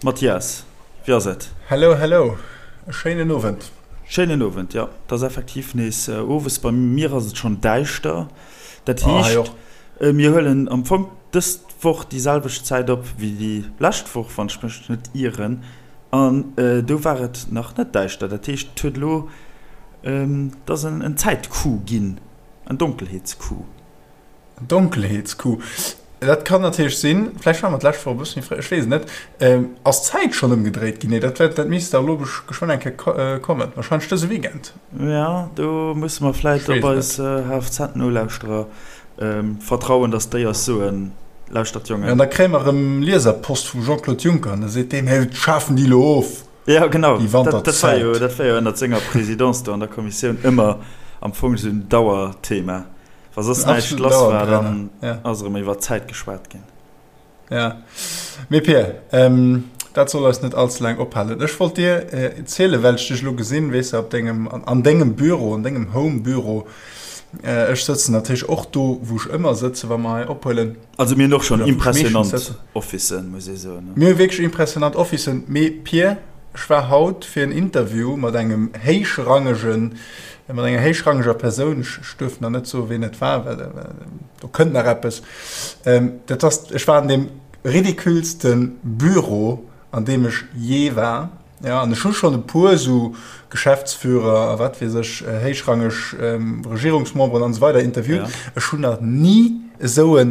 Mathias, wéi ass et? Hello, hello, e schéinen Owend. Schéinen Owend, jo, et ass effektiv nees owes. Bei mir ass et schonn däischter. Dat heescht, mir huelen am Fong dës Woch déi selwecht Zäit op wéi déi lescht Woch, wann ech mech net ieren. An do war et nach net däischter. Dat heescht, et huet elo, et ass en Zäitcoup ginn, en Donkelheetscoup. Donkelheetscoup, dat kann natierlech sinn. Vläicht ware mer d'lescht Woch e bësse méi fréi, ech weess et net. Ass d'Zäit schonn ëmgedréit ginn? Nee, dat wäert, dat misst dach elo geschwënn eng Kéier kommen, warscheinlech dëse Weekend. Jo, do musse mer vläicht op eis HFZ-Nolauschterer vertrauen, datt déi eis soen, Lauschtert Jongen. Jo, an da kréie mer erëm Lieserpost vum Jean-Claude Juncker an da seet deen, Hé, schafen déi elo of, Jo, genau, déi Wanterzäit. Dat war jo ënnert senger Présidence do an der Kommissioun ëmmer am Fong esou en Dauerthema. Wa soss näischt lass war, dann ass erëm iwwer d'Zäit geschwat ginn. Ja. Mee Pir, dat soll eis net all ze laang ophalen. Ech wollt dir zielen, well ech dech elo gesinn, weess de, op dengem, an dengem Büro, an dengem Home-Büro. Ech sëtzen natierlech och do, wou ech ëmmer sëtzen, wa mer hei ophuelen. Also mir hunn och schonn impressionant Officen, muss ee soen. Mir hu wierklech impressionant Officen. Mee Pir, ech war haut fir en Interview mat engem héichrangegen, mat enger héichrangeger Persoun, ech duerf nach net soen, wien et war, well do kënnt nach eppes. Dat ass, ech war an deem ridiculste Büro, an deem ech jee war. Jo, an ech hu schonn e puer esou Geschäftsführer a wat weess ech, héichrangeg Regierungsmemberen an esou weider interviewt. Ech hunn nach ni esou e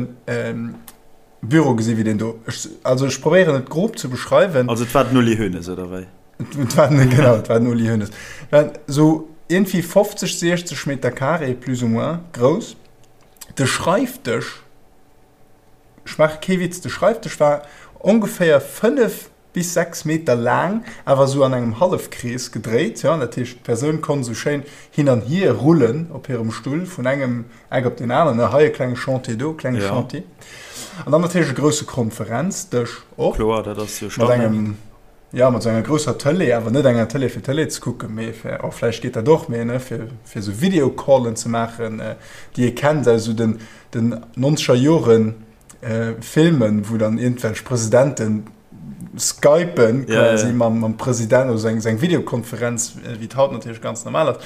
Büro gesi wéi deen do. Ech, also ech probéieren et grob ze beschreiwen. Also et war den Uli Hoeneß, oder wéi? Et war den, genau, et war den Uli Hoeneß. Et waren esou iergendwéi 50, 60 Meter carré plus ou moins grouss. De Schreifdësch, ech maache kee Witz, de Schreifdësch war ongeféier 5 bis 6 Meter laang, awer esou an engem Hallefkrees gedréit, jo, dat heescht d'Persoun konnt esou schéin hin an hier rullen op hirem Stull vun engem Eck op deen aneren, ne, hei e klenge Chantier, do e klenge Chantier. An dann natierlech e grousse Konferenzdësch och. Kloer, dat ass jo Standard. Mat engem, jo, mat esou enger grousser Tëlee, awer net enger Tëlee fir Tëlee ze kucken, mee fir, oh vläicht geet dat och, mee ne, fir, fir esou Videocallen ze maachen, déi ee kennt aus esou den, den nonzeger Joren. Filmen, wou dann iergendwelch Presidenten skypen quasi mam, mam President oder seng, seng Videokonferenz, wéi et haut natierlech ganz normal ass,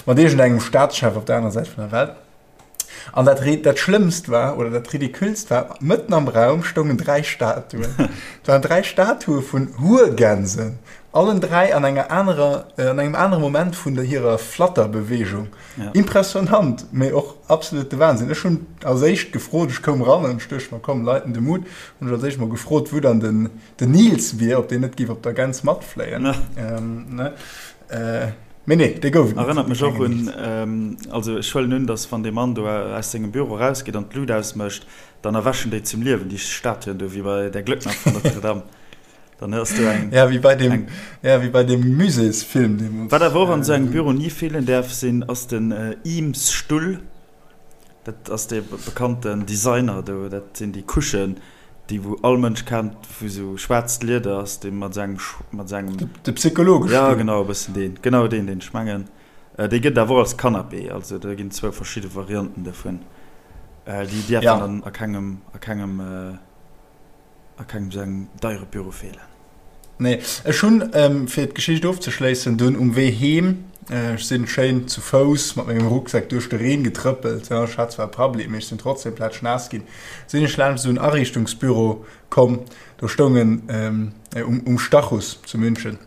mat iergendengem Staatschef op der anerer Säit vun der Welt. An dat, dat Schlëmmst war, oder dat Ridiculst war, mëtten am Raum stoungen dräi Statuen. Et waren dräi Statue vun Huergänsen, allen dräi an enger anerer, an engem anere Moment vun der hirer Flatterbewegung. Ja. Impressionant, mee och absolute Wahnsinn. Ech hunn als éischt gefrot, ech koum ran an ech duecht mer, komm, Leiten de Mut, hunn ech als éischt mol gefrot, wou dann den, den Nils wier, ob deen net géif op der Gäns matfléien. Ja. Ähm, ne? Äh, mee nee, dee gouf et net. Erënnert mech och un, ähm, also ech huelen un, dass wann dee Mann do aus sengem Büro erausgeet an d'Lut ausmécht, dann erwächen déi zum Liewen, déi Statuen do, wéi bei Der Glöckner von Notre Dame. Dann hues du eng. Ja, wéi bei dem, eng, ja, wéi bei dem Muséesfilm deemools. Wat awer och an esou engem Büro ni feelen däerf sinn, ass den Eames-Stull. Dat ass dee bekannten Designer do. Dat sinn déi Couchen, déi wou all Mënsch kennt, wou esou schwaarzt Lieder ass, dee mat esou engem, mat esou engem. De Psychologestull. Ja, genau, e bëssen deen. Genau deen, deen ech mengen. Dee gëtt awer och als Canapé. Also do ginn zwou verschidde Varianten dovun. Déi däerfen dann a kengem, a kengem. A kengem sou engem deiere Büro feelen. Nee, ech hunn, fir d'Geschicht ofzeschléissen, dunn um Wee heem, ech sinn schéin zu Fouss mat mengem Rucksak duerch de Reen getrëppelt, jo, ech hat zwar e Prabbeli, mee ech sinn trotzdem plätschnaass ginn, sinn ech laanscht esou en Ariichtungsbüro komm, do stoungen, um Stachus zu München,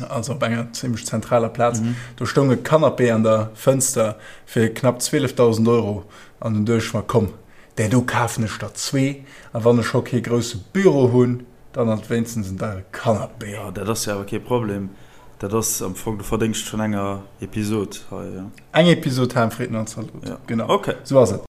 also op enger zimmlech zentraler Plaz, do stoung e Canapé an der Fënster fir knapp 12.000 Euro an dunn duecht ech mer, komm, Där do kafen ech der zwee, a wann ech scho kee grousse Büro hunn, dann alt wéinstens en deiere Canapé. Jo, dat ass jo awer kee Problem. Dat ass am Fong de Verdéngscht vun enger Episod hei, jo. Eng Episod Ham, Fritten an Zalot, genau. Ok. Sou ass et.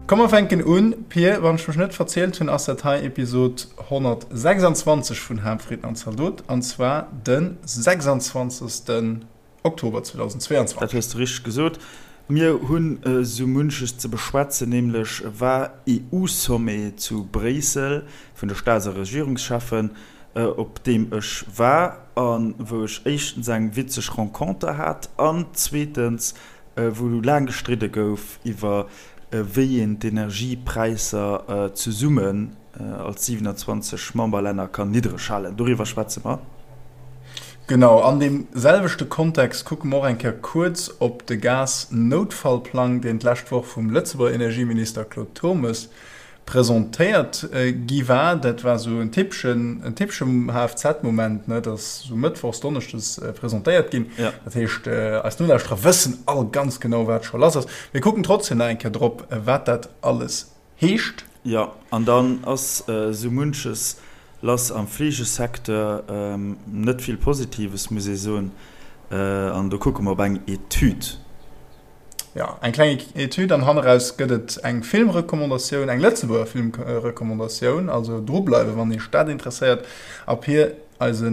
Komm mer fänken un. Pir, wann ech mech net verzielt hunn, ass dat hei Episod 126 vun Ham, Fritten an Zaldot, an zwar de 26. Oktober 2022. Dat hues de richteg gesot. Mir hunn esou munches ze beschwätzen, nämlech war EU-Sommet zu Bréissel vun de Staats a Regierungscheffen, op deem ech war a wou ech éischtens eng witzeg Renconter hat an zweetens wou laang gestridde gouf iwwer wéi een d'Energiepräisser zesummen als 27 Memberlänner kann niddreg halen. Doriwwer schwätze mer. Genau, an deem selwechte Kontext kucke mer och eng Kéier kuerz op de Gas-Noutfallplang, deen d'lescht Woch vum Lëtzebuerger Energieminister Claude Turmes presentéiert gi war. Dat war esou en typeschen, en typeschem HFZ-Moment, ne, dat ass esou mëttwochs, donneschdes presentéiert ginn. Dat heescht, eis Nolauschterer wëssen all ganz genau, wat scho lass ass. Mir kucken trotzdem nach eng Kéier drop, wat dat alles heescht. Jo, an dann ass esou munches lass am Fleegesecteur. Net vill Positives, muss ee soen. An do kucke mer op eng Etüd. Jo, eng kleng Etüd an hanneraus gëtt et eng Filmrecommandatioun, eng Lëtzebuerger Filmrecommandatioun. Also drubleiwen, wann Iech dat interesséiert. A Pir, eise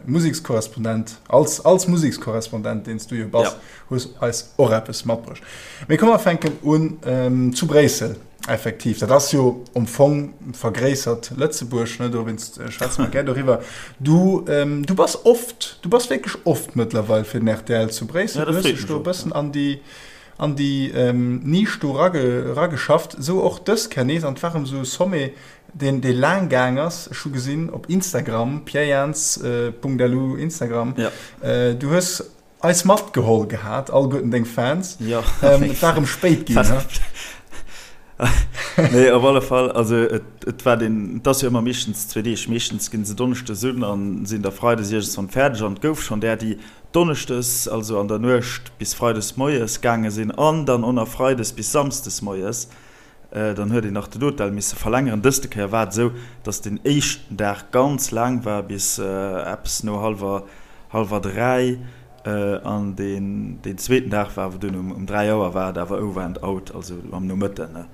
Musekskorrespondent, als, als Musekskorrespondent, deen s du jo bass, hues eis och eppes matbruecht. Mee komm mer fänken un zu Bréissel. Effektiv, dat ass jo am Fong vergréissert Lëtzebuerg, ne, dowéinst schwätze mer gär doriwwer. Du, du bass oft, du bass wierklech oft mëttlerweil fir den rtl zu Bréissel. Du hues dech do e bëssen an déi, an déi Nisch do erageschafft. Esou och dës Kéier nees. An et war erëm esou e Sommet, deen, dee laang gaang ass. Ech hu gesinn op Instagram, pierjans.lu Instagram, du hues Eis matgeholl gehat, alleguerten deng Fans. Jo. Et war erëm spéit ginn, he? Nee, op alle Fall, also et, et war den, et ass jo ëmmer meeschtens zwee Deeg. Meeschtens ginn se donneschdes un an sinn da freides iergendswann fäerdeg. An et gouf schonn där, déi donneschdes, also an der Nuecht bis freides moies gaange sinn an dann och nach freides bis samsdes moies. Dann huet een nach den Hotel misse verlängeren. Dëste Kéier war et esou, dass den éischten Dag ganz laang war, bis eppes no hallwer, hallwer 3. An deen, deen zweeten Dag war awer dunn um, um 3 Auer war et awer over and out, also am Nomëtten.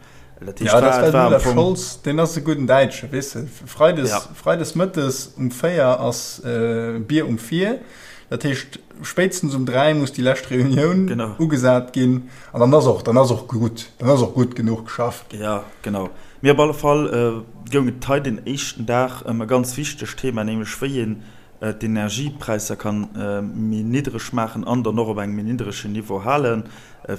Dat heescht, Ja, dat war, et war am Fong. Scholz, deen ass e gudden Däitsche, weess de. Freides, Ja. freides mëttes um 4 ass Bier um 4. Dat heescht, spéitstens um 3 muss déi lescht Reunioun Genau. ugesat ginn. An dann ass och, dann ass och gutt, dann ass och gutt genuch geschafft ginn. Ja, genau. Mee op alle Fall goung et hei den éischten Dag ëm e ganz wichtegt Thema, nämlech wéi een d'Energiepräisser kann méi niddreg maachen an dann och op engem méi niddregen Niveau halen,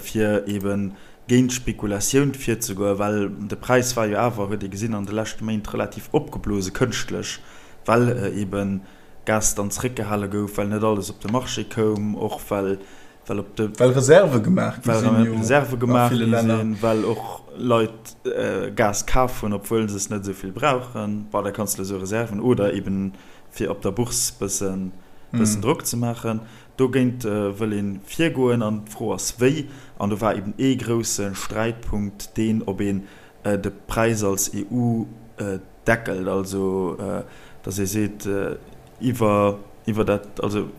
fir eebe géint d'Spekulatioun virzegoen, well de Präis war jo awer, huet ee gesinn an de leschte Méint, relativ opgeblose kënschtlech, well eebe Gas dann zeréckgehale gouf, well net alles op de Marché koum, och well well op de Well Reserve gemaach gi sinn jo Reserve gemaach gi sinn, well och Leit Gas kaf hunn, obwuel se es net esou vill brauchen. Bon, da kanns de esou Reserven oder eben fir op der Bourse bëssen bëssen Drock ze maachen. Dogéint wëll ee virgoen an d'Fro ass wéi. An do war eben ee grousse Sträitpunkt deen, ob een de Präis als EU deckelt, also datt ee seet, iwwer iwwer dat, also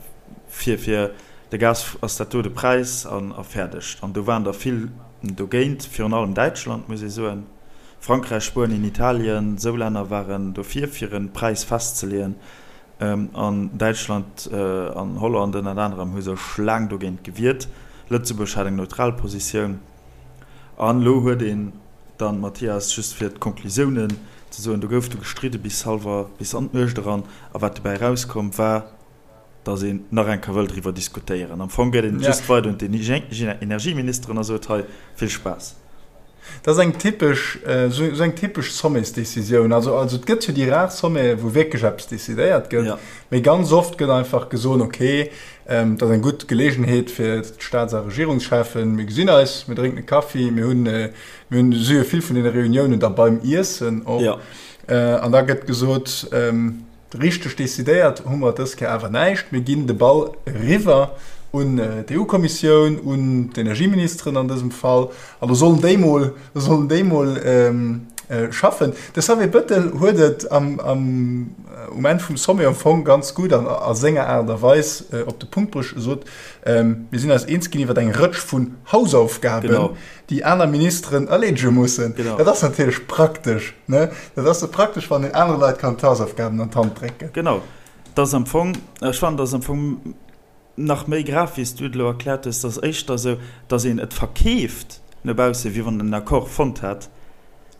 fir fir de Gas ass dat do de Präis an a fäerdeg. An do waren der vill dogéint, virun allem Däitschland, muss ee soen, Frankräich, Spuenien, Italien, esou Länner waren dofir, fir e Präis festzeleeën. An Däitschland an Holland ënnert anerem hu sech laang dogéint gewiert. Lëtzebuerg hat eng neutral Positioun. An elo huet een dann, Mathias, just fir d'Konklusiounen ze soen, do gouf du gestridde bis hallwer, bis an d'Nuecht eran. A wat dobäi erauskomm war, datt een nach eng Kéier wëll driwwer diskutéieren. Am Fong gëtt een et just weider un d'Energieministeren a sot, hei, vill Spaass. Dat ass eng typesch, esou eng typesch Sommetsdecisioun. Also, also et gëtt jo déi rar Sommete wou wierklech eppes decidéiert gëtt, mee ganz oft gëtt einfach gesot, okay, Dat ass eng gutt Geleegenheet fir d'Staats a Regierungscheffen. Mir gesinn eis, mir drénken e Kaffi, mir hunn, mir hunn si jo vill vun deene Reuniounen da beim Iessen och. Jo. An da gëtt gesot, richteg decidéiert hu mer dës Kéier awer näischt. Mir ginn de Ball eriwwer un d'EU-Kommissioun, un d'Energieministeren an dësem Fall. An do sollen déi mol, do sollen déi mol schaffen. De Xavier Bettel huet et am, am, um Enn vum Sommet am Fong ganz gutt an a senger Aart a Weis op de Punkt bruecht. E sot, Mir sinn eis eens ginn iwwer eng Rëtsch vun Hausaufgaben, Genau. déi aner Ministeren erleedege mussen. Genau. Dat ass natierlech praktesch, ne? Dat ass praktesch, wann een anere Leit kann d'Hausaufgaben an d'Hand drécken. Genau. Dat ass am Fong, ech fannen, dat ass am Fong. Nach méi grav, wéi s du et elo erkläert hues, et ass éischter esou, datt een et verkeeft no bausse wéi wann en en Accord fonnt hätt,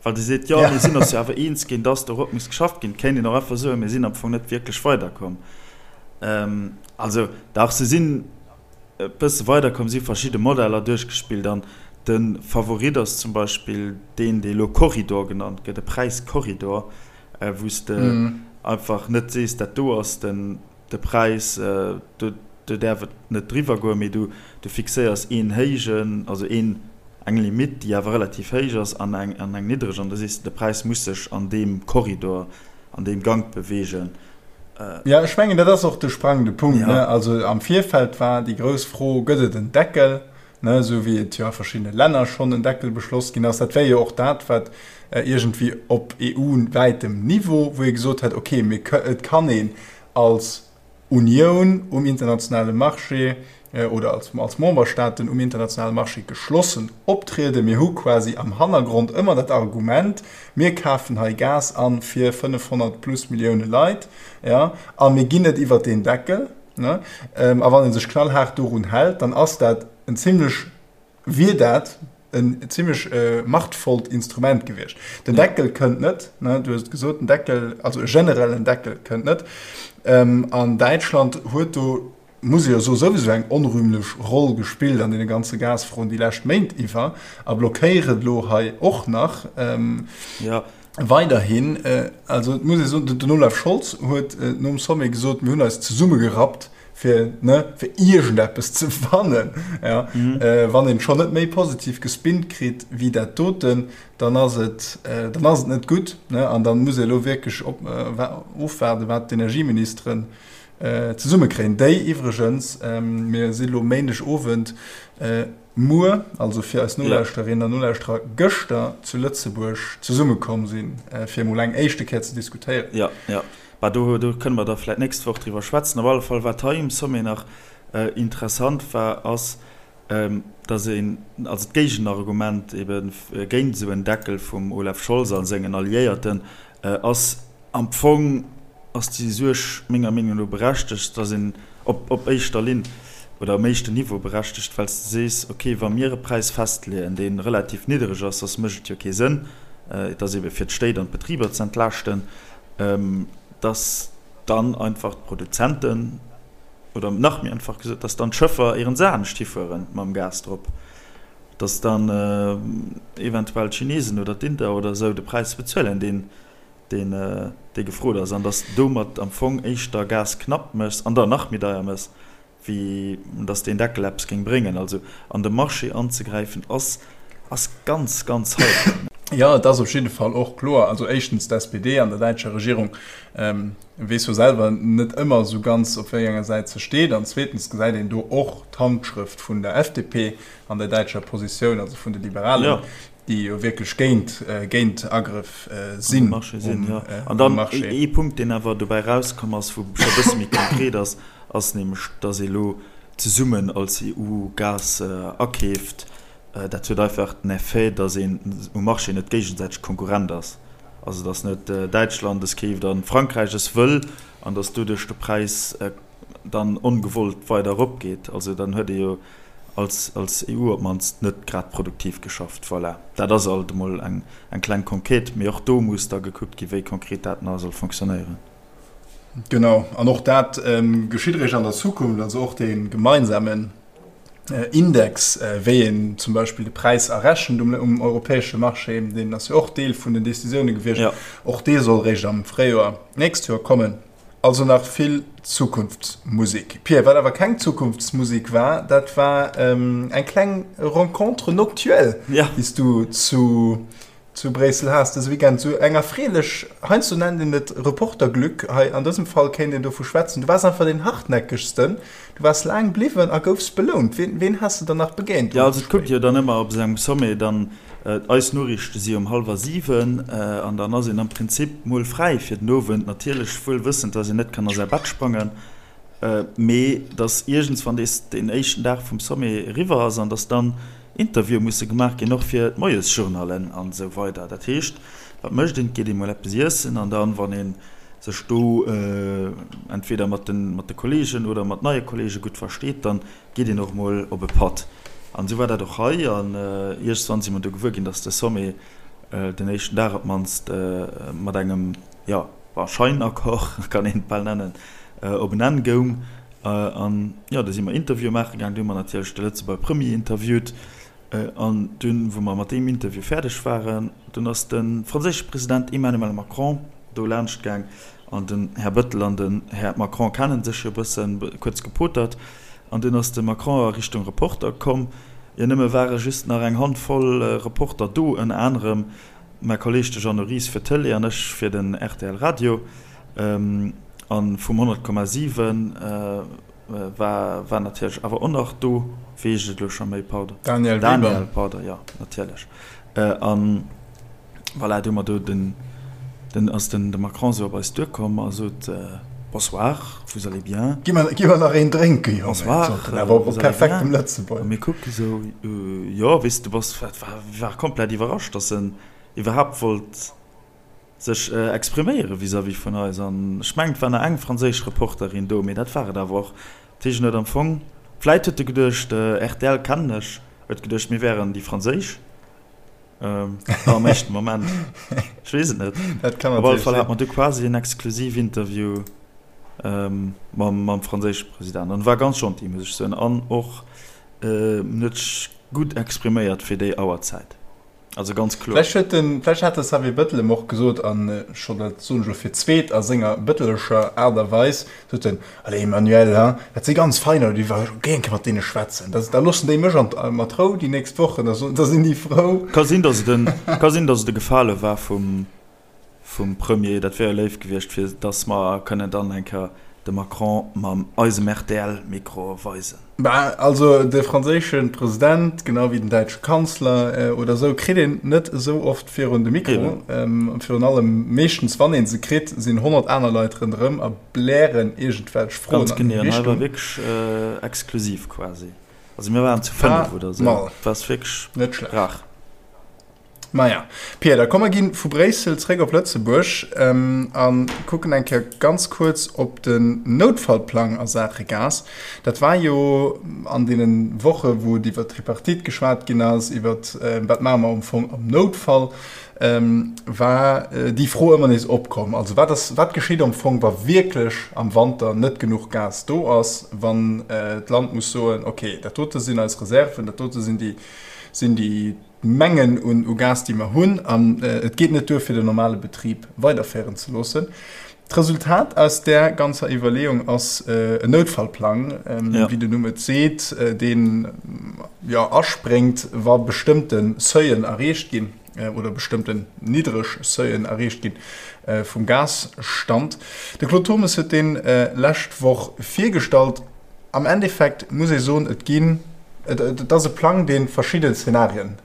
well de seet, jo mir sinn eis jo awer eens ginn, datt dorop muss geschafft ginn. Et kéint een och einfach soen, mir sinn am Fong net wierklech weiderkomm. Also dach, se sinn e bësse weiderkomm, si verschidde Modeller duerchgespillt an de Favorit ass zum Beispill deen, dee elo Korridor genannt gëtt, e Präiskorridor, wou s de einfach net sees, dat do ass den De Präis, do däerf et net driwwer goen, mee du fixéiers een héijen, also een, eng Limitt, déi awer relativ héich ass, an eng, an eng niddreg, an da sees de, de Präis muss sech an deem Korridor, an deem Gank beweegen. Jo, ech mengen, dat ass och de sprangende Punkt, ne? Also am Virfeld war déi grouss Fro, Gëtt et en Deckel? ne, esou wéi et jo a verschiddene Länner schonn en Deckel beschloss ginn ass. Dat wär jo och dat, wat iergendwéi op EU-wäitem Niveau, wou ee gesot hätt, okay, mir, et kann een als Unioun um internationale Marché oder als, als Memberstaaten um internationale Marché geschlossen optrieden. Mir hu quasi am Hannergrond ëmmer dat Argument, mir kafen hei Gas an fir 500 plus Millioune Leit, ja, a mir ginn net iwwert deen Deckel. Ne? A wann ee sech knallhaart dorun hält, dann ass dat en zimlech, wier dat en zimlech machtvollt Instrument gewiescht. Den Deckel kënnt net, ne? Du hues et gesot, den Deckel, also e generellen Deckel kënnt net. An Däitschland huet do, muss ee jo soen, souwisou eng onrühmlech Roll gespillt an deene ganze Gasfroen déi lescht Méint iwwer a blockéiert elo hei och nach. Weiderhin, also et muss ee soen, den Olaf Scholz huet nom Sommet gesot, mir hunn eis zesummegerappt, fir, ne, fir iergendeppes ze fannen. Ja. Wann een schonn net méi positiv gespinnt kritt wéi dat doten, dann ass et, dann ass et net gutt. Ne? An dann muss ee elo wierklech op, ofwaarden, wat d'Energieministeren zesummekréien, déi iwwregens, mir si lo Méindegowend, muer, also fir eis Nolauschterinnen an Nolauschterer gëschter zu Lëtzebuerg zesummekomm sinn, fir emol eng éischte Kéier ze diskutéieren. Jo, jo. Bah, do, do kënne mer da vläicht d'nächst Woch driwwer schwätzen. Op alle Fall, wat hei um Sommet nach interessant war, ass, dass een, also d'Géigenargument ebe géint esou en Deckel vum Olaf Scholz a sengen Alliéierten ass, Am Fong ass déi Suerg menger Meenung no berechtegt, dass een op op éischter Linn oder um éischten Niveau berechtegt, well s de sees, okay, wa mir e Präis festleeën, dee relativ niddereg ass, soss mécht et jo kee Sënn, et ass ebe fir d'Stéit an d'Betriber ze entlaaschten, dass dann einfach d'Produzenten, oder nach méi einfach gesot, dass dann d'Schëffer ieren se anescht hifuere mam Gas drop, dass dann eventuell d'Chinesen oder d'Inder oder esou de Präis bezuelen, deen deen dee gefrot ass, an dass domat am Fong éischter Gas knapp méchs an der nach méi deier méchs, wéi dass deen Deckel eppes géing bréngen. Also an de Marché anzegräifen ass ass ganz, ganz heikel. Jo, et ass op jidde Fall och kloer, also éischtens d'SPD an der däitscher Regierung weess jo selwer net ëmmer esou ganz op wéi enger Säit se steet, an zweetens gesäit een do och d'Handschrëft vun der FDP an der däitscher Positioun, also vun de Liberalen, déi jo wierklech géint géint Agrëff sinn um Marché. An dann ee Punkt, deen awer dobäi erauskomm ass, wou scho e bësse méi konkret ass, ass nämlech, datt ee elo zesummen als EU Gas akeeft. Dat huet einfach den Effet, datt een um Marché net géigesäiteg Konkurrent ass. Also datt net Däitschland es keeft a Frankräich es wëll an datt doduerch de Präis dann ongewollt weider eropgeet. Also dann huet ee jo als als EU op d'mannst net grad produktiv geschafft. Voilà, dat ass alt emol eng eng kleng Conquête, mee och do muss da gekuckt ginn, wéi konkret dat nach soll fonctionnéieren. Genau, an och dat geschitt eréischt an der Zukunft, also och dee gemeinsamen Index, wéi een zum Beispill de Präis errechent um um europäesche Marché, deen ass jo och Deel vun den Décisioune gewiescht, och dee soll eréischt am Fréijoer d'nächst Joer kommen. Also nach vill Zukunftsmusik. Pia, wat awer keng Zukunftsmusik war, dat war eng kleng Rencontre noctuelle, déi s du zu zu Bréissel has dëse Weekend. Sou eng erfreelech, heiansdo nennt een et Reporterglück, hei an dësem Fall kéint een dovu schwätzen. Du waars einfach deen hartnäckegsten, du waars laang bliwwen a goufs belount. Wien, wien has de dann nach begéint um Jo, also et kuckt jo dann ëmmer op esou engem Sommet dann, Eis Noriichte si um hallwer 7 an dann ass een am Prinzip mol fräi fir den Owend. Natierlech wuel wëssend, dass een net kann a säi Bett sprangen, mee dass iergendswann dees deen éischten Dag vum Sommet eriwwer ass an dass dann Interviewe musse gemaach ginn, och fir d'Moiesjournalen an esou weider. Dat heescht, wat mécht een? Et geet ee mol eppes iessen an dann, wann ee. sech do entweder mat de Kollegen oder mat neie Kollege gutt versteet, dann geet een och mol op e Patt. An esou war dat och hei. An iergendwann si mer du gewuer ginn, datt de Sommet den éischten Dag op d'mannst mat engem, jo, bon, Scheinaccord, kann een et bal nennen, op en Enn goung. An, jo, du si mer Interviewe maache gaang. Du hu mer natierlech de Lëtzebuerger Premier interviewt. An dunn, wou mer mat deem Interview fäerdeg waren, dunn ass de franséische President Emmanuel Macron do laanscht gaang. An den Här Bettel an den Här Macron kennen sech jo e bëssen, kuerz gepotert. An dunn ass de Macron a Richtung Reporter komm. Jo, nëmme ware just nach eng Hand voll Reporter do, ënner anerem mäi Kolleeg de Jeannot Ries fir d'Tëlee an ech fir den rtl Radio. A vum 100,7 war war natierlech awer och nach do. Wéi heescht et elo scho méi? Pardon. Daniel Weber. Daniel, pardon, jo, natierlech. An voilà, du hu mer do den, den ass den de Macron esou op eis duerkomm a sot, Bonsoir, vous allez bien? Gi mer, gi mer nach een drénken, Jongen, Bonsoir, sot en awer op vous allez bien? perfektem Lëtzebuergesch. A mir kucke sou, jo, weess de, du bass, war, war komplett iwwerrascht, dass en iwwerhaapt wollt sech expriméiere vis-à-vis vun eis. An ech mengen, et war nach eng franséisch Reporterin do, mee dat war et awer och. Dat heescht, en huet am Fong, vläit huet e geduecht, rtl kennen ech, huet geduecht, mir wären déi franséisch am éischten Moment. Ech weess et net. Dat kann Op alle natierlech Fall hat sinn. mer du quasi en Exklusivinterview mam, mam franséische President. An e war ganz gentil, muss ech soen. An och en huet sech gutt expriméiert fir déi Auerzäit. Also ganz kloer. Vläicht huet den, vläicht hat de Xavier Bettel em och gesot, an scho dat soen ech elo fir d'zweet a senger bëttelescher Aart a Weis, sot en, Allez Emmanuel, hein, dat si ganz fein Leit, ech géing eng Kéier mat deene schwätzen, da, da loossen déi mech an, mat Rou déi nächst Wochen, da, da sinn déi frou. Ka sinn, datt et en, ka sinn, datt et e Gefale war vum, vum Premier, dat wär jo léif gewiescht, fir datt mer kënnen dann eng Kéier de Macron mam eisem RTL-Mikro weisen. Bah, also de franséische President, genau wéi den däitsche Kanzler oder esou, kritt een net esou oft virun de Mikro. Virun allem, meeschtens wann ee se kritt, sinn 100 aner Leit ronderëm a blären iergendwelch Froen Ganz an genee, hir an hei war Richtung. wierklech exklusiv quasi. Also mir waren zu 5 Pas oder esou, mal. et war wierklech Net schlecht. rar. Maja, Pia, da komm mer ginn vu Bréissel zréck op Lëtzebuerg a kucken eng Kéier ganz kuerz op den Noutfallplang a Saache Gas. Dat war jo an deene Woche wou et iwwer d'Tripartite geschwat ginn ass, iwwer wat maache mer am Fong am Noutfall, war déi Fro ëmmer nees opkomm. Also wat ass, wat geschitt am Fong, wa wierklech am Wanter net genuch Gas do ass, wann d'Land muss soen, okay, dat dote sinn eis Reserven, dat dote sinn déi, sinn déi, Mengen un u Gas, déi mer hunn, an et geet net duer, fir den normale Betrib weiderféieren ze loossen. D'Resultat aus där ganzer Iwwerleeung ass en Noutfallplang, wéi den Numm et seet, deen, jo, aspréngt, wa bestëmmte Seuilen erreecht ginn oder bestëmmten niddreg Seuilen erreecht gi vum Gasstand. De Claude Turmes huet dee lescht Woch virgestallt. Am Endeffekt muss ee soen, et ginn, et ass e Plang, dee verschidde Zenarien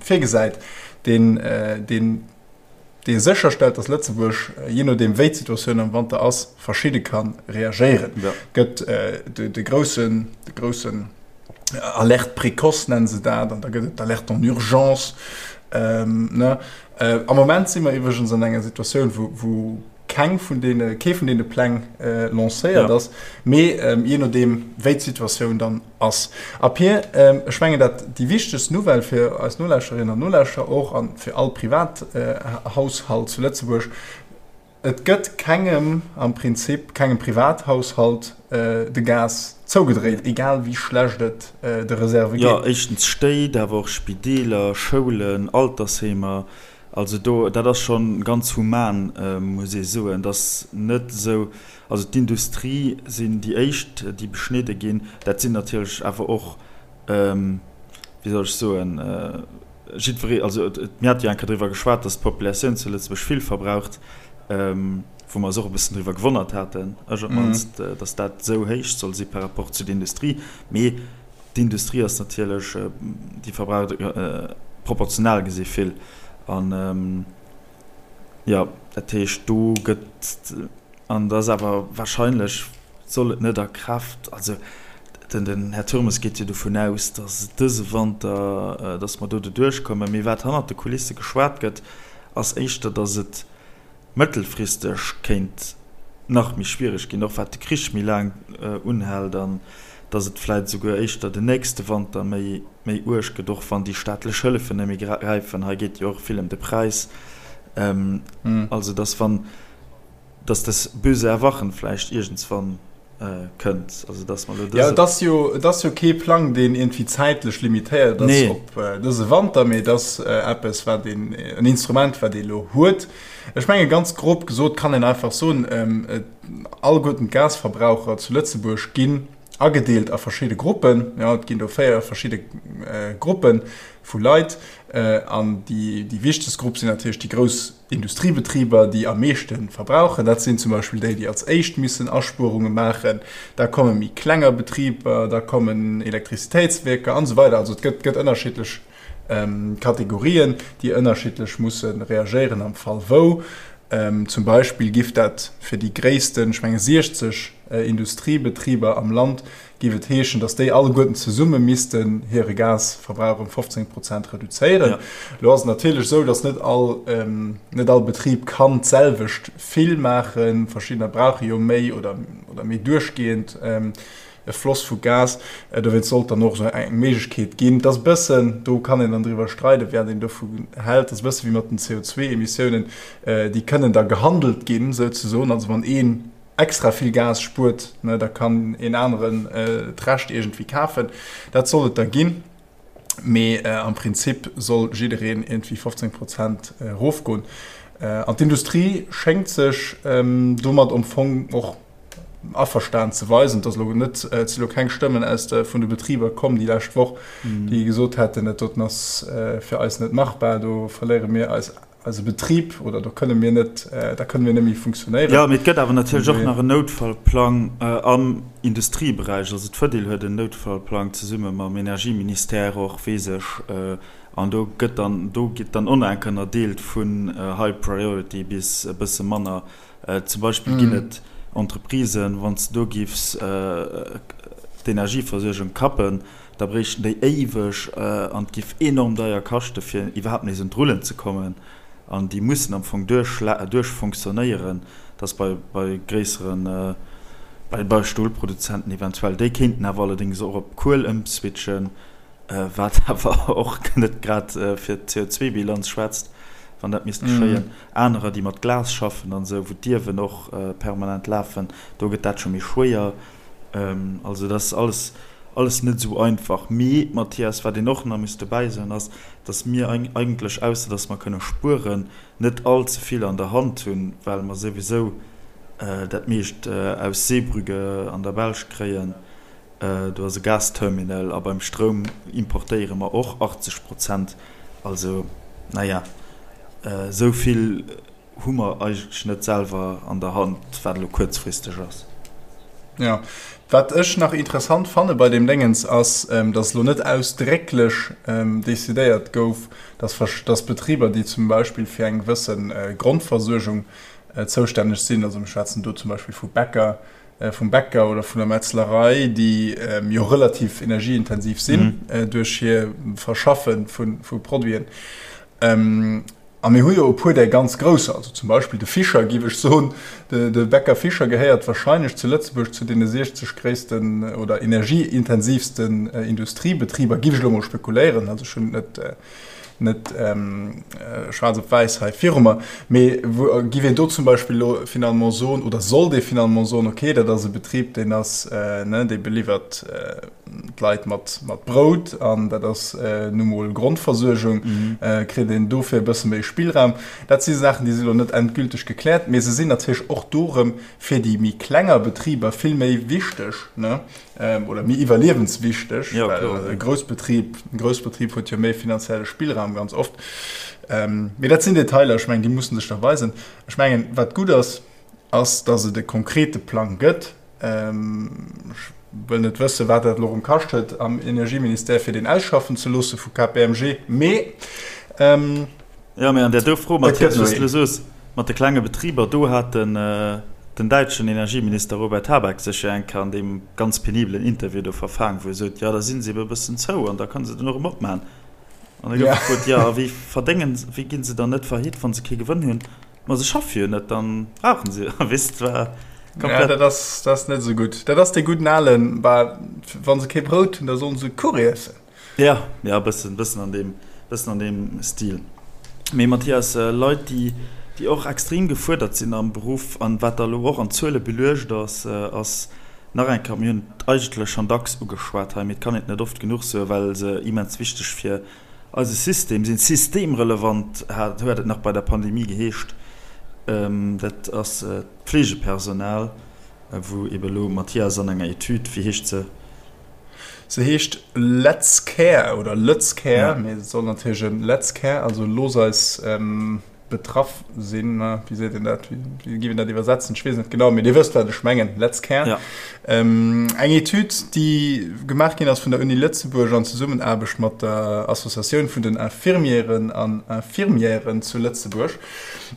virgesäit, deen, deen, dee sécherstellt, datt Lëtzebuerg, jee nodeem wéi d'Situatioun am Wanter ass, verschidde ka reagéieren. Et gëtt de groussen, de groussen Alerte précoce nennen se dat, an da gëtt et d'Alerte en urgence, ne. Am Moment si mer iwwregens an enger Situatioun, wou, wou keng vun deene, kee vun deene Pläng lancéiert ass, mee jee nodeem wéi d'Situatioun dann ass. A Pir, ech mengen dat déi wichtegst Nouvelle fir eis Nolauschterinnen an Nolauschterer och a fir all Privathaushalt zu Lëtzebuerg, Et gëtt kengem am Prinzip, kengem Privathaushalt de Gas zougedréit, egal wéi schlecht et de Reserve Jo, geet. éischtens Stéit, awer och Spideeler, Schoulen, Altersheemer, Also do, dat ass scho ganz human, muss ee soen, dass net esou, also d'Industrie sinn déi éischt, déi beschnidde ginn. Dat sinn natierlech awer och, wéi soll ech soen, jiddweree, also mir hate jo eng Kéier driwwer geschwat, dass d'Populatioun zu Lëtzebuerg vill verbraucht, wou mer eis och e bëssen driwwer gewonnert haten, ech op d'mannst, dass dat esou héich soll si par rapport zu der Industrie. Mee D'Industrie ass natierlech, déi verbraucht proportional gesi vill. An jo, dat heescht do gëtt, an et ass awer wahrscheinlech, soll et net a Kraaft, also den Här Turmes geet jo dovun aus, datt et dëse Wanter, datt mer do doduerch kommen. Mee wat hannert de Kulisse geschwat gëtt, ass éischter, datt et. Mëttelfristeg kéint nach méi schwiereg ginn, och wat de Krich méi laang unhält an datt et vläit esouguer éischter den nächste Wanter méi méi uerg gëtt, och wann déi staatlech Hëllefen net méi gräifen. Hei geet jo och vill ëm de Präis. Also datt wann, datt das böse Erwachen vläicht iergendswann kënnt. Also datt mer elo dëse. Jo, et ass jo, et ass jo kee Plang, deen iergendwéi zäitlech limitéiert ass op dëse Wanter, mee et ass eppes, wat een, en Instrument, wat ee elo huet. Ech menge ganz grob gesot kann een einfach soen, alleguerten d'Gasverbraucher zu Lëtzebuerg ginn agedeelt a verschidde Gruppen. Jo, et ginn do 4 verschidde Gruppe vu Leit an déi, déi wichtegst Grupp sinn natierlech déi grouss Industriebetriber, déi am meeschte verbrauchen, dat sinn zum Beispill déi, déi als éischt missen Aspuerunge maachen. Da komme méi klenger Betriber, da kommen Elektrizitéitswierker an esou weider. Also et gëtt, gëtt ënnerschiddlech Kategorien, déi ënnerschiddlech musse reagéieren am Fall wou. Zum Beispill giff dat fir déi gréissten, ech menge 60 Industriebetriber am Land, géif et heeschen, datt déi alleguerten zesumme missten hire Gasverbrauch ëm 15 Prozent reduzéieren. Elo ass et natierlech esou, datt net all, net all Betrib kann d'selwecht vill maachen. Verschiddener brauche jo méi oder, oder méi duerchgehend e Floss vu Gas. Dowéinst sollt dann och esou eng Méiglechkeet ginn. Et ass e bëssen, do kann een dann driwwer streiden, wat een dovu hält, et ass e bësse wéi mat den CO2-Emissiounen, déi kënnen da gehandelt ginn souzesoen. Also wann een extra vill Gas spuert, ne, da kann een aneren d'Recht iergendwéi kafen. Dat soll et da ginn, mee am Prinzip soll jiddereen iergendwéi 15 Prozent erofgoen. An d'Industrie schéngt sech domat am Fong och averstan ze weisen. Et ass elo net, et si elo keng Stëmmen aus de, vun de Betriber komm déi lescht Woch, déi gesot hätten, dat doten ass fir eis net machbar, do verléiere mir eis eise Betrib oder do kënne mir net, da kënne mir net méi funktionéieren. Jo, mee et gëtt awer natierlech och nach en Noutfallplang am Industrieberäich. Also d'Fedil huet en Noutfallplang zesumme mam Energieministère och, weess ech. An do gëtt dann, do gitt dann och nach eng Kéier ënnerdeelt vun High Priority bis e bësse manner. Zum Beispill ginn et Entreprisen, wann s de do giffs d'Energieversuergung kappen, da bréichten déi éiweg an et giff enorm deier kaschte fir iwwerhaapt nees un d'Rullen ze kommen. An déi mussen am Fong duerch fonctionnéieren, dass bei bei gréisseren, bei bei Stolproduzenten eventuell, déi kéinten awer allerdéngs och op Kuel ëmswitchen, wat awer och net grad fir d'CO2-Bilanz schwätzt, wann dat misst geschéien. Anerer, déi mat Glas schaffen an esou, wou d'Iewen och permanent lafen, do gëtt dat scho méi schwéier. Also dat ass alles, alles net esou einfach. Mee, Mathias, wat een och nach muss dobäi soen, ass, datt mir eigentlech, ausser datt mer kënne spueren, net all ze vill an der Hand hunn, well mer souwisou dat meescht aus Zeebrugge an der Belsch kréien. Do ass e Gasterminal a beim Stroum importéiere mer och 80 Prozent. Also, naja, esou vill hu mer eigentlech net selwer an der Hand, wat elo kuerzfristeg ass. Jo, wat ech nach interessant fanne bei deem Déngens ass, datt elo net ausdrécklech decidéiert gouf, datt Betriber, déi zum Beispill fir eng gewësse Grondversuergung zoustänneg sinn, also mir schwätzen do zum Beispill vu Bäcker, vum Bäcker oder vun der Metzlerei, déi jo relativ energieintensiv sinn duerch hir Verschaffe vu Produiten. A mir hu jo e puer där ganz grousser, also zum Beispill de Fischer, géif ech soen, de Bäcker Fischer gehéiert wahrscheinlech zu Lëtzebuerg zu deene 60 gréissten oder energieintensiivsten Industriebetriber, géif ech elo mol spekuléieren, also ech hunn et net net schwaarz op wäiss hei viru mer, mee wou giff een do zum Beispill elo finalement soen, oder sollt ee finalement soen, okay, dat ass e Betrib, deen ass, ne, dee beliwwert d'Leit mat, mat Brout an dat ass nu mol Grondversuergung, kritt een dofir e bësse méi Spillraum. Dat si Saachen, déi si elo net endgülteg gekläert, mee se sinn natierlech och do erëm fir déi méi klenger Betriber vill méi wichteg, ne. Oder méi iwwerliewenswichteg, well e Groussbetrib, e Groussbetrib huet jo méi finanzielle Spillraum ganz oft. Mee dat sinn Detailer, ech mengen, déi mussen sech da weisen. Ech mengen, wat gutt ass, ass, datt et e konkrete Plang gëtt. Ech wëll net wëssen, wat dat elo erëm kascht huet am Energieministère, fir deen ausschaffen ze loosse vu KPMG, mee. Jo, mee an där do Fro, Mathias, wou s de elo soos, mat de klenge Betriber, do hat den den däitschen Energieminister Robert Habeck sech jo eng Kéier an deem ganz penibelen Interview do verfaang, wou e sot, jo da si se ebe e bëssen zou an da kënne se den och erëm opmachen. An da gouf gefrot, jo a wéi verdéngen, wéi gi se dann net faillite, wa se kee Gewënn hunn? Ma se schaffe jo net, dann brauchen se jo, weess de, war komplett. Ja, dat ass, dat ass net esou gutt. Dat ass dee gudden alen, bah, wa se kee Brout hunn, da sollen se Kuch iessen. Ja, ja, e bëssen, bëssen an deem, bëssen an deem Stil. Mee Mathias, Leit, déi, déi och extrem gefuerdert sinn am Beruff an wat da elo och an Zuele beluecht ass, ass nach eng Kéier, mir hunn et eigentlech schonn dacks ugeschwat hei, mee et kann een et net oft genuch soen, well se immens wichteg fir Eise System sinn systemrelevant, hat huet et nach bei der Pandemie geheescht. Dat ass d'Fleegepersonal, wou ebe elo Mathias an enger Etüd, wéi heescht se? Se heescht Let's Care oder Lëtz Care, mee et soll natierlech e Let's Care, also looss eis Betraff sinn, wéi seet een dat, wéi géif een dat iwwersetzen, ech weess net genau, mee Dir wësst wat ech mengen, Let's Care. Ja. Ähm, eng Etüd, déi gemaach ginn ass vun der Uni Lëtzebuerg an Zesummenaarbecht mat der Associatioun vun den Infirmieren an Infirmièren zu Lëtzebuerg.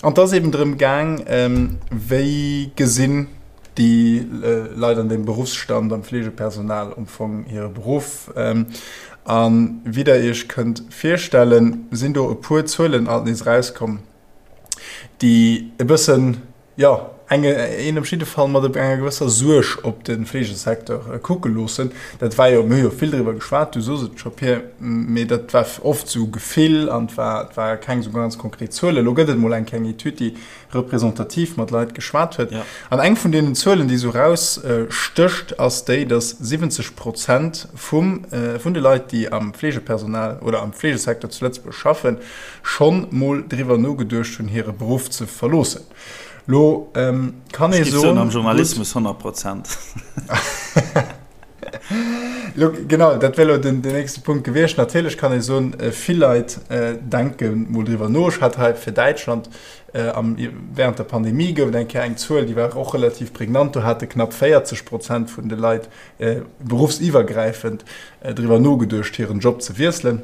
An et ass eben drëm gaang, ähm, wéi gesinn déi Leit an deem Beruffsstand, am Fleegepersonal am Fong hire Beruff. A wéi Der Iech kënnt virstellen, sinn do e puer Zuelen alt nees erauskomm, déi e bëssen, jo, eng, een op jidde Fall mat enger gewësser Suerg op de Fleegesecteur kucke loossen. Dat war jo, mir hu jo vill driwwer geschwat, du sos et scho, Pir, mee dat war oft esou Gefill an et war, et ware keng esou ganz konkret Zuelen. Elo gëtt et emol eng kleng Etüd, déi representativ mat Leit geschwat huet. Ja. An eng vun deenen Zuelen, déi esou rausstécht, ass déi, dass 70 Prozent vum, vun de Leit, déi am Fleegepersonal oder am Fleegesecteur zu Lëtzebuerg schaffen, schonn mol driwwer nogeduecht hunn, hire Beruff ze verloossen. Lo kann ee soen. Am Journalismus 100 Prozent. Lo, genau, dat wär lo den, den nächste Punkt gewiescht. Natierlech kann ee soen, vill Leit denke mol driwwer no. Ech hat hei fir Däitschland Am, während der Pandemie gouf et eng Kéier eng Zuel, déi war och relativ prägnant, do hate knapp 40 Prozent vun de Leit beruffsiwwergräifend driwwer nogeduecht, hiren Job ze wiesselen.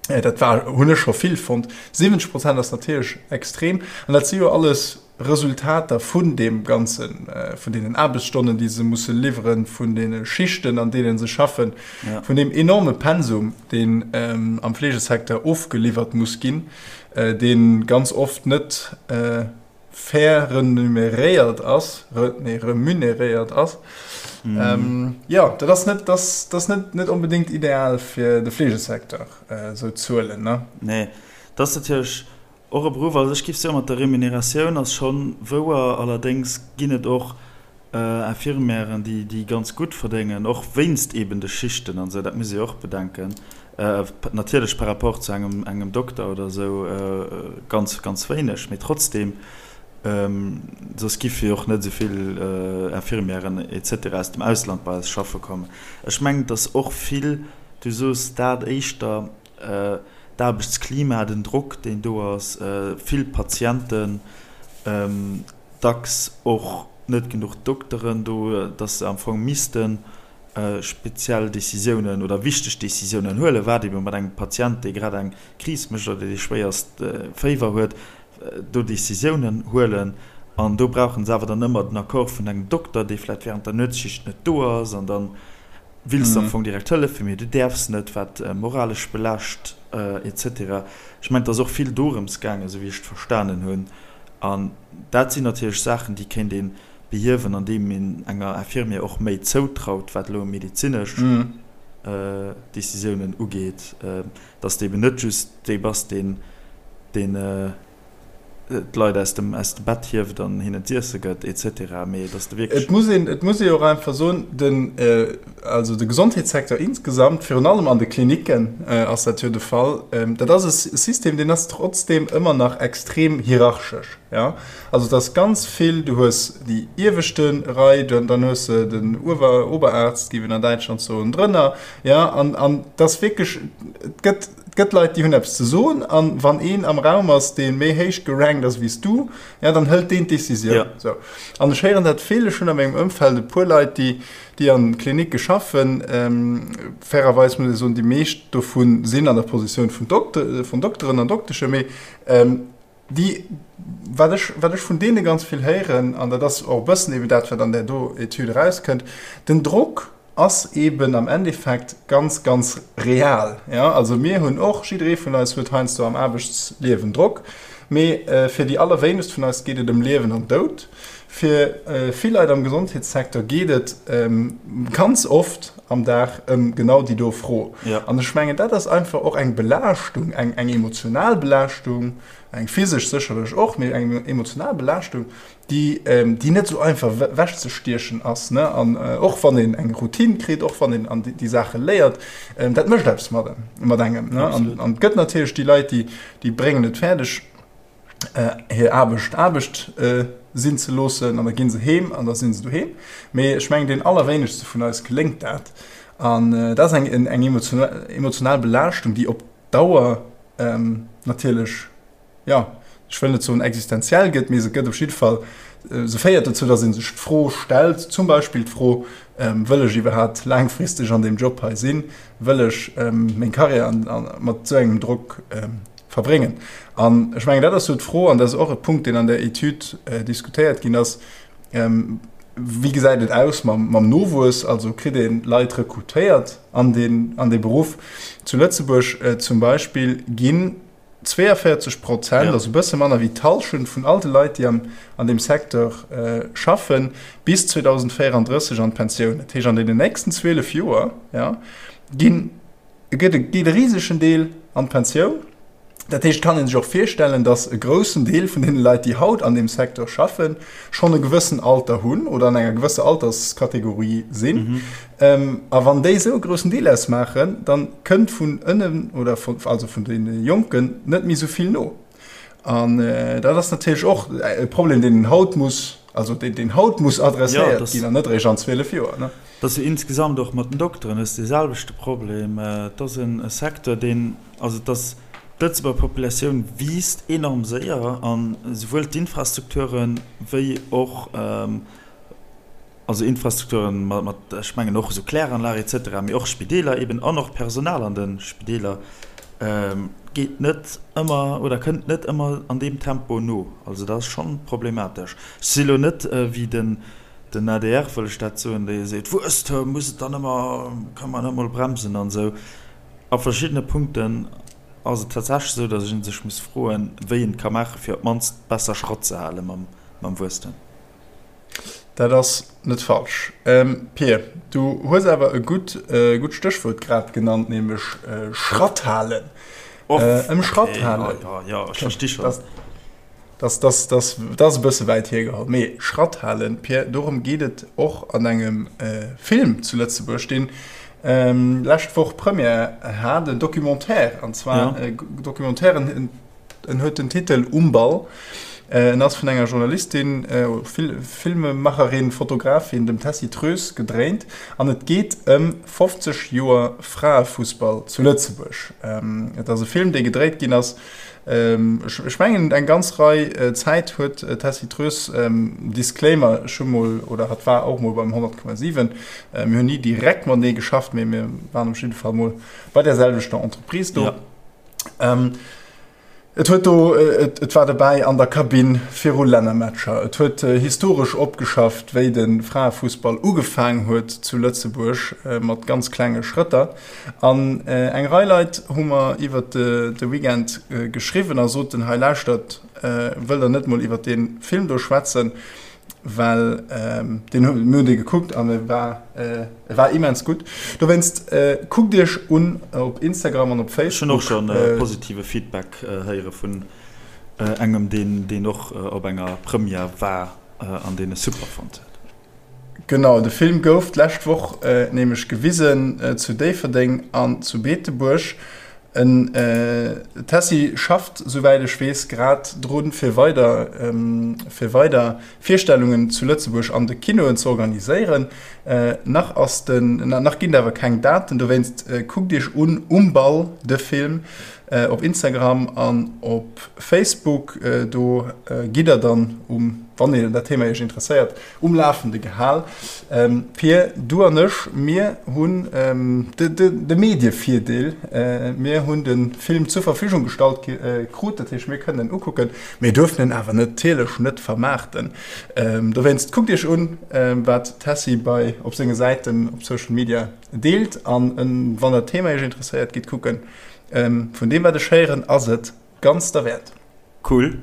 Dat war, hunn ech scho vill fonnt. 70 Prozent ass natierlech extrem. An dat si jo alles Resultater vun deem Ganzen, vun deenen Aarbechtsstonnen, déi se musse liwweren, vun deene Schichten, an deene se schaffen, vun deem enorme Pensum, deen am Fleegesecteur ofgeliwwert muss ginn. dee ganz oft net fair renumeréiert ass, nee, remuneréiert ass. Mm. Jo, dat ass net, dat ass net, net onbedéngt ideal fir de Fleegesecteur, esou Zuelen, ne? Nee, dat ass natierlech och e Beruff, also ech géif soen, mat der Remuneratioun ass schonn wouer, allerdéngs ginn et och Infirmièren, déi ganz gutt verdéngen, och wéinst eben de Schichten an esou, dat muss ee jo och bedenken. Natierlech par rapport zu engem, engem Dokter oder esou ganz, ganz wéineg, mee trotzdeem, soss giffe jo och net esou vill Infirmièren et cetera aus dem Ausland bei eis schaffe kommen. Ech mengen, et ass och vill, du soos dat éischter, d'Aarbechtsklima, den Drock, deen do ass, vill Patienten, dacks och net genuch Dokteren do, dass se am Fong misste speziell Décisiounen oder wichteg Décisiounen huelen, wat ebe mat engem Patient, dee grad eng Kris mécht oder dee schwéierst Féiwer huet, do Décisiounen huelen. An do brauche se awer dann ëmmer den Accord vun engem Dokter, dee vläicht während der Nuetsschicht net do ass. An da wills de am Fong direkt hëllefen, mee du däerfs net, wat moralesch belaascht et cetera. Ech mengen, et ass och vill dorëms gaangen, esou wéi ech et verstanen hunn. An dat sinn natierlech Saachen, déi kéint ee behiewen, andeem een enger Infirmière och méi zoutraut, wat elo medezinesch Décisiounen ugeet, dass de eben net just dee bass, deen d'Leit aus dem Bett hieft an hinnen z'iesse gëtt et cetera, mee dass de wierklech. Et muss een, et muss ee jo och einfach soen, den, also de Gesondheetssecteur insgesamt, virun allem an de Klinicken ass dat jo de Fall, dat ass e System, deen ass trotzdeem ëmmer nach extrem hierarchesch. Jo, also et ass ganz vill, du hues déi ieweschte Rei, dann hues de den Uewer, Oberarzt, géif een an Däitschland soen, drënner, jo, an, an et ass wierklech, et gëtt, et gëtt Leit, déi hunn eppes ze soen, an wann een am Raum ass, dee méi héich gerankt ass wéi s du, jo, dann hëlt deen d'Decisioun. Sou. An ech héieren dat vill, ech hunn a mengem Ëmfeld e puer Leit, déi, déi an Klinicke schaffen, fairerweis muss ee soen, déi meescht dovu sinn an der Positioun vun Dokte, vun Dokteren an Dokteschen, mee Déi, wat ech, wat ech vun deene ganz vill héieren, an dat ass och e bëssen eben dat, wat an där do Etüd erauskënnt, den Drock ass eben am Endeffekt ganz, ganz real. Jo, also mir hunn och, jidderee vun eis huet heiansdo am Aarbechtsliewen Drock. Mee fir déi allerwéinegst vun eis geet et ëm Liewen an Doud. Fir vill Leit am Gesondheetssecteur geet et ganz oft am Dag ëm genau déi do Fro. An ech mengen, dat ass einfach och eng Belaaschtung, eng emotional Belaaschtung, eng physesch sécherlech och, mee eng emotional Belaaschtung, déi déi net esou einfach ewechzestiechen ass, ne, an och wann een eng Routine kritt, och wann een an déi Saache léiert, dat mécht eppes mat mat engem, ne. An an et gëtt natierlech déi Leit, déi déi bréngen et fäerdeg, hir Aarbecht Aarbecht sinn ze loossen an da gi se heem an da si se doheem. Mee ech mengen, deenen allerwéinegste vun eis geléngt dat an dat ass eng eng emotional Belaaschtung, déi op Dauer natierlech, jo, ech wëll net soen existenziell gëtt, mee se gëtt op jidde Fall, se féiert dozou, datt ee sech d'Fro stellt, zum Beispill d'Fro, Wëll ech iwwerhaapt laangfristeg an deem Job hei sinn? Wëll ech meng Karriär mat esou engem Drock verbréngen? An ech mengen, dat ass esou d'Fro, an dat ass och e Punkt, deen an der Etüd diskutéiert ginn ass, Wéi gesäit et aus mam Nowuess? Also kritt ee Leit rekrutéiert an dee Beruff? Zu Lëtzebuerg zum Beispill ginn 42 Prozent, also e bësse manner wéi d'Hallschent vun all de Leit, déi an deem Secteur schaffen, bis 2034 an d'Pensioun. Dat heescht, an deenen nächsten 12 Joer, jo, ginn, geet e risegen Deel an d'Pensioun. Dat heescht, et kann ee sech och virstellen, datt e groussen Deel vun deene Leit, déi haut an deem Secteur schaffen, schonn e gewëssen Alter hunn oder an enger gewësser Alterskategorie sinn. A wann déi esou e groussen Deel ausmaachen, da kënnt vun ënnen oder vun, also vun deene Jonken net méi esou vill no. An dat ass natierlech och e Problem, deen een haut muss, also deen, deen haut muss adresséiert ginn an net eréischt an 12 Joer, ne? Dat ass jo insgesamt och mat den Dokteren hues de selwechte Problem. Et ass e Secteur, deen, also et ass, d'Lëtzebuerger Populatioun wiisst enorm séier an esouwuel d'Infrastrukture wéi och, also Infrastrukturen mat, ech mengen och esou Kläranlage et cetera, mee och Spideeler eben an och Personal an de Spideeler geet net ëmmer oder kënnt net ëmmer an deem Tempo no. Also dat ass schonn problematesch. Ech si lo net wéi den den adr, wëll ech dat soen, dee seet, Wuesstem muss et dann ëmmer, ka man net emol bremsen an esou. A verschiddene Punkten ass et tatsächlech esou, datt ee sech muss froen, wéi een et ka maachen, fir op d'mannst besser Schratt ze hale mam Wuesstem. Dat ass net falsch. Pir, du hues awer e gutt gutt Stéchwuert grad genannt, nämlech Schratt halen. Ëm Schratt halen. Jo, jo, ech versti schonn. Dat ass e bësse wäit hiergeholl, mee Schratt halen, Pir, dorëm geet et och an engem Film zu Lëtzebuerg, deen lescht Woch Première hat, en Documentaire, an zwar e Documentaire, En huet den Titel Um Ball. En ass vun enger Journalistin, Filmemacherin, Fotografin, dem Tessy Troes, gedréint an et geet ëm 50 Joer Fraefussball zu Lëtzebuerg. Et ass e Film, dee gedréit ginn ass, ech mengen eng ganz Rei Zäit huet d'Tessy Troes, Disclaimer, ech hu mol, oder hatt war och mol beim 100,7, mir hunn ni direkt matenee geschafft, mee mir waren op jidde Fall mol bei där selwechter Entreprise do. Ähm, et huet do, et, et war dobäi an der Kabinn viru Lännermatcher. Et huet äh, historesch opgeschafft, wéi de Fraefussball ugefaang huet zu Lëtzebuerg äh, mat ganz klenge Schrëtter. An äh, eng Rei Leit hu mer iwwer de, de Weekend äh, geschriwwen a soten, hei lauschtert, äh, wëllt der net mol iwwer dee Film do schwätzen? Well ähm, deen hu, mir hunn dee gekuckt an e war, äh, e war immens gutt. Dowéinst äh, kuckt iech un op Instagram an op Facebook. Ech hunn och schonn äh, positive Feedback äh, héiere vun äh, engem, deen, deen och äh, op enger Première war äh, an deen e super fonnt huet. Genau, de Film gouf d'lescht Woch äh, nämlech gewisen äh, zu Déifferdeng an zu Beetebuerg. En Tessy schafft, souwäit ech weess, grad drun, fir weider fir weider Virstellungen zu Lëtzebuerg an de Kinoen ze organiséieren. Nach ass den nach ginn et awer keng Daten, dowéinst kuckt iech un Um Ball, de Film, op Instagram an op Facebook. Do gitt der dann um, wann een dat Thema iech interesséiert, Um Lafende gehal. Pir, du an ech, mir hunn de Medievirdeel, mir hunn de Film zur Verfügung gestallt krut, dat heescht mir kënnen en ukucken, mir duerfen en awer natierlech net vermaarten. Dowéinst kuckt iech un, wat d'Tessy bei op senge Säiten op Social Media deelt an wann dat Thema iech interesséiert, gitt kucken. Vun deem wat ech héieren, ass et ganz derwäert. Cool.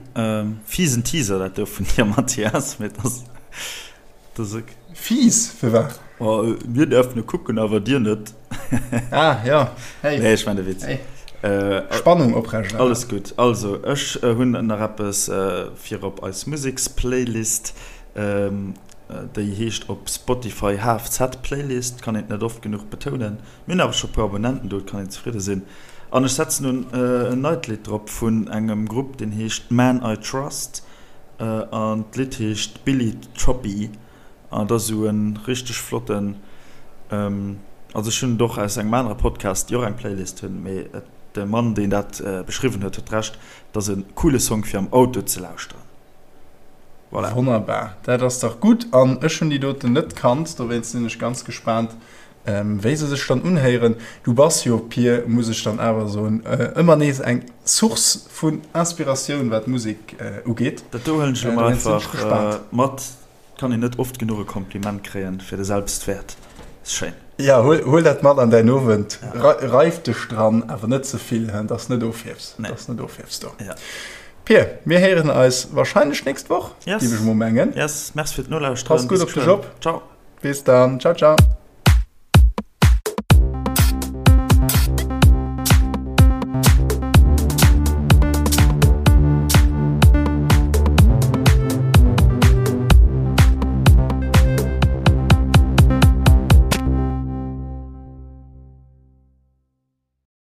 Fiesen Teaser dat do vun dir Mathias, mee dass dass ok. Fies? Firwat? Oh, mir däerfen e kucken, awer dir net. Ah jo, hey. Nee, ech maan e Witz. Hey. Spannung oprechterhalen. Alles gutt. Also, ech hunn nach eppes fir op eis Museksplaylist. Déi heescht op Spotify HFZ Playlist, kann een et net oft genuch betounen. Mir hunn awer scho puer Abonnenten do, et kann een zefridde sinn. An ech setzen nun en neit Lidd drop vun engem Grupp, deen heescht Man I Trust an d'Lidd heescht Billy Choppy an et ass esou e richteg flotten, also ech hunn et och aus engem anere Podcast, déi och eng Playlist hunn, mee de Mann, deen dat beschriwwen huet, huet Recht, et ass e coole Song fir am Auto ze lauschteren. Voilà. Wonnerbar, dat ass dach gutt an ech hunn déi doten net kannt, dowéinst sinn ech ganz gespaant, Wéi se sech dann unhéieren. Du bass jo, Pir, muss ech dann awer soen, ëmmer nees eng Source vun Inspiratioun, wat Musek ugeet. Dat do huelen ech elo mol einfach mat. Kann een net oft genuch e Kompliment kréien fir de Selbstwäert. Ass schéin. Jo, huel dat mat an däin Owend. Reif dech dran, awer net ze vill, dass net ofhiefs. Dass net ofhiefs do. Pir, mir héieren eis wahrscheinlech nächst Woch, géif ech mol mengen. Yes, merci fir d'Nolauschteren. Pass gutt op dech op. Ciao. Bis dann, ciao ciao.